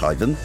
schreiwen.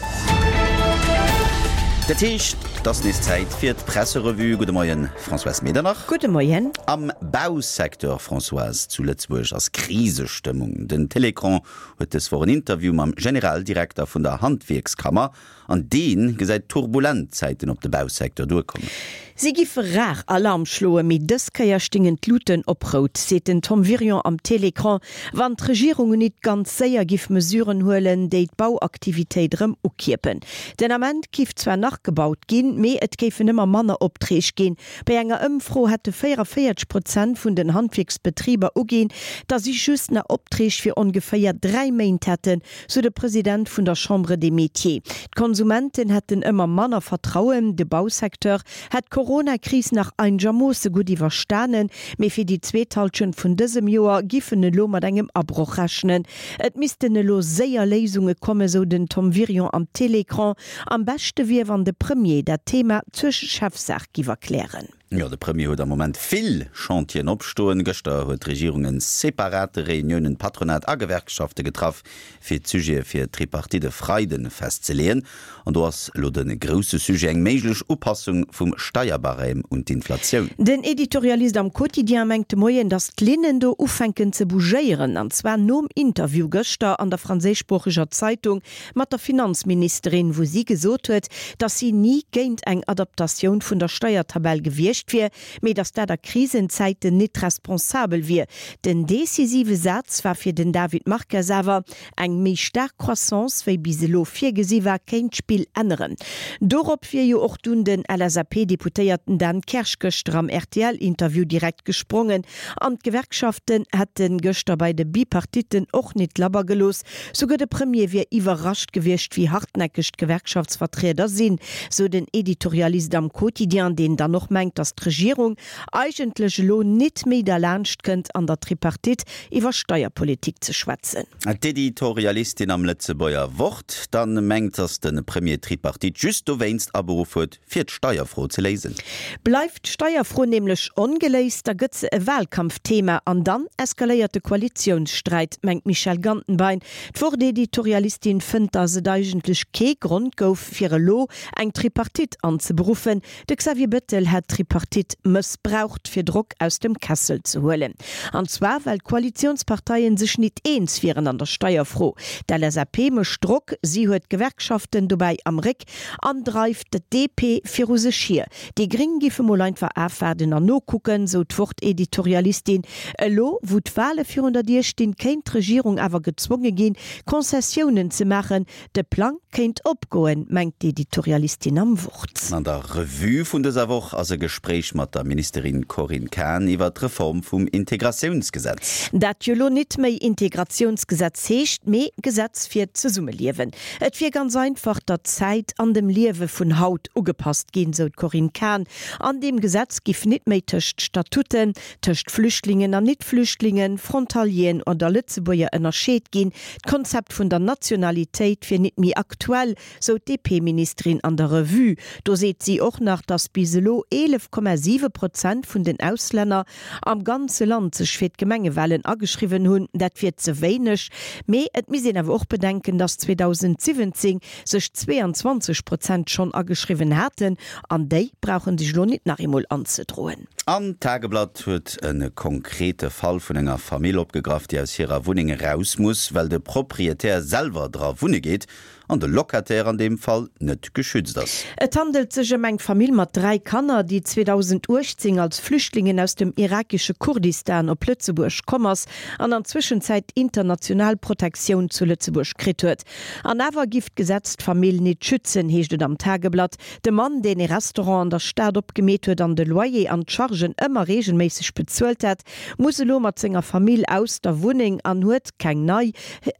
Dat heescht, et ass nees Zäit fir d'Presserevue. Gudde Moien, Françoise Medernach. Gudde Moien. Am Bausecteur, Françoise, zu Lëtzebuerg ass Krisestëmmung. Den Télécran huet dës Woch en Interview mam Generaldirekter vun der Handwierkskammer An dee gesäit turbulent Zäiten op de Bausecteur duerkommen. Si giffe rar Alarm schloen, mee dës Kéier stingen d'Luten op rout, seet den Tom Wirion am Télécran. Wann d'Regierung nit ganz séier giff Mesuren huelen, déi d'Bauaktivitéit erëm ukierpen. Den Ament giff zwar nach gebaut ginn, mee et géifen ëmmer manner Opträg ginn. Bei enger Ëmfro hätte 44 Prozent vun den Handwierksbetriber uginn, datt si just nach Opträg fir ongeféier 3 Méint hätten. sou de President vun der Chambre des Métiers. D'Konsumenten hätten ëmmer manner Vertrauen. De Bausecteur hätt d'Corona-Kris nach einegermoosse gutt iwwerstanen, mee fir déi zweet Hallschent vun dësem Joer giff en elo mat engem Abroch rechnen. Et missten elo séier Léisunge kommen, sou den Tom Wirion am Télécran. Am beschte wier, wann de Premier dat Thema zur Chefsaach giff erklären. Jo, de Premier huet am Moment vill Chantieren opstoen. Gëschter huet d'Regierung en separate Reuniounen Patronat a Gewerkschafte getraff, fir d'Sujete fir d'Tripartite e Freide festzeleeën. An do ass elo de grousse Sujet eng méiglech Upassung vum Steierbarème un d'Inflatioun. Den Editorialist am Quotidien mengt de Moien, datt d'Linnen do ufänken ze bougéieren, an zwar nom Interview gëschter an der franséischsproocheger Zeitung mat der Finanzministerin, wou si gesot huet, datt si ni géint eng Adaptatioun vun der Steiertabell gewiescht wier, mee datt dat a Krisenzäiten nit responsabel wier. Den decisive Saz war fir den David Marques awer, Eng méi staark Croissance wéi bis elo virgesi war, kéint d'Spill änneren. Dorop wier jo och dunn den LSAP-Deputéierten Dan Kersch gëschter am RTL-Interview direkt gesprongen. An d'Gewerkschaften hätte gëschter bei de Bipartitten och nit labber gelooss. Souguer de Premier wier iwwerrascht gewiescht, wéi hartnäckeg d'Gewerkschaftsvertrieder sinn, sou den Editorialist am Quotidien, deen dann och mengt, datt d'Regierung eigentlech elo nit méi derlaanscht kënnt, an der Tripartite iwwer Steierpolitik ze schwätzen. D'Editorialistin am Lëtzebuerger Wort dann mengt, datt de Premier d'Tripartite just dowéinst aberuff huet, fir d'Steierfro ze léisen. Bleift d'Steierfro nämlech ongeléist, da gëtt se e Wahlkampfthema an dann eskaléiert de Koalitiounssträit, mengt d'Michèle Gantenbein. D'Wort-Editorialistin fënnt, datt et eigentlech kee Grond gouf, fir elo eng Tripartite anzeberuffen. De Xavier Bettel hätt d'Tripartite mëssbraucht, fir Drock aus dem Kessel ze huelen. An zwar well d'Koalitiounsparteien sech nit eens wieren an der Steierfro. D'LSAP mécht Drock, si huet d'Gewerkschaften dobäi am Réck An dreift d'DP viru sech hier. Déi Gring giffe mol einfach afwaarden an nokucken, sou d'Wort-Editorialistin. Elo, wou d'Wale virun der Dier stinn, kéint d'Regierung awer gezwonge ginn, Concessiounen ze maachen. De Plang kéint opgoen, mengt d'Editorialistin am Wort. An der Revue vun dëser Woch ass e Gespréich mat der Ministerin Corinne Cahen iwwer d'Reform vum Integratiounsgesetz. Dat jo lo nit méi Integratiounsgesetz heescht, mee Gesetz fir d'Zesummeliewen. Et wier ganz einfach der Zäit an dem Liewe vun haut ugepasst ginn, sou d'Corinne Cahen. An deem Gesetz giff nit méi tëscht Statuten, tëscht Flüchtlingen an Nit-Flüchtlingen, Frontalieren oder Lëtzebuerger ënnerscheet ginn. D'Konzept vun der Nationalitéit wier nit méi aktuell, sou d'DP-Ministerin an der Revue. Do seet si och nach, datt bis elo 11,7 Prozent vun den Auslänner am ganze Land sech fir d'Gemengewalen ageschriwwen hunn. Dat wier ze wéineg, mee et misst een awer och bedenken, datt 2017 sech 22 Prozent schonn ageschriwwen haten an déi brauche sech elo nit nach eemol anzedroen. An d'Tageblatt huet e konkrete Fall vun enger Famill opgegraff, déi aus hirer Wunneng eraus muss, well de Proprietär selwer dra wunne geet an de Locataire an deem Fall net geschützt ass. Et handelt sech ëm eng Famill mat 3 Kanner, déi 2018 als Flüchtlingen aus dem irakesche Kurdistan op Lëtzebuerg komm ass an an Zwëschenzäit international Protektioun zu Lëtzebuerg kritt huet. An awer giff d'Gesetz d'Famill nit schützen, heescht et am Tageblatt. De Mann, deen ee Restaurant an der Stad opgemeet huet an de Loyer an d'Chargen ëmmer reegelméisseg bezuelt hätt, muss elo mat senger Famill aus der Wunneng an huet keng nei.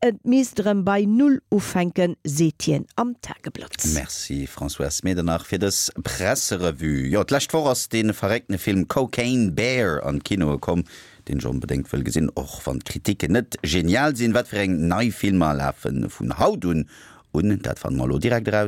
Et misst erëm bei Null ufänken, seet hien am Tageblatt. Merci Françoise Medernach fir dës Presserevue. Jo, d'lescht Woch ass dee verréckte Film Cocaine Bear an d'Kinoe komm, deen ech onbedéngt wëll gesinn, och wann d'Kritiken net genial sinn. Wat fir eng nei Filmer lafe vun haut un un, dat fanne mer elo direkt eraus.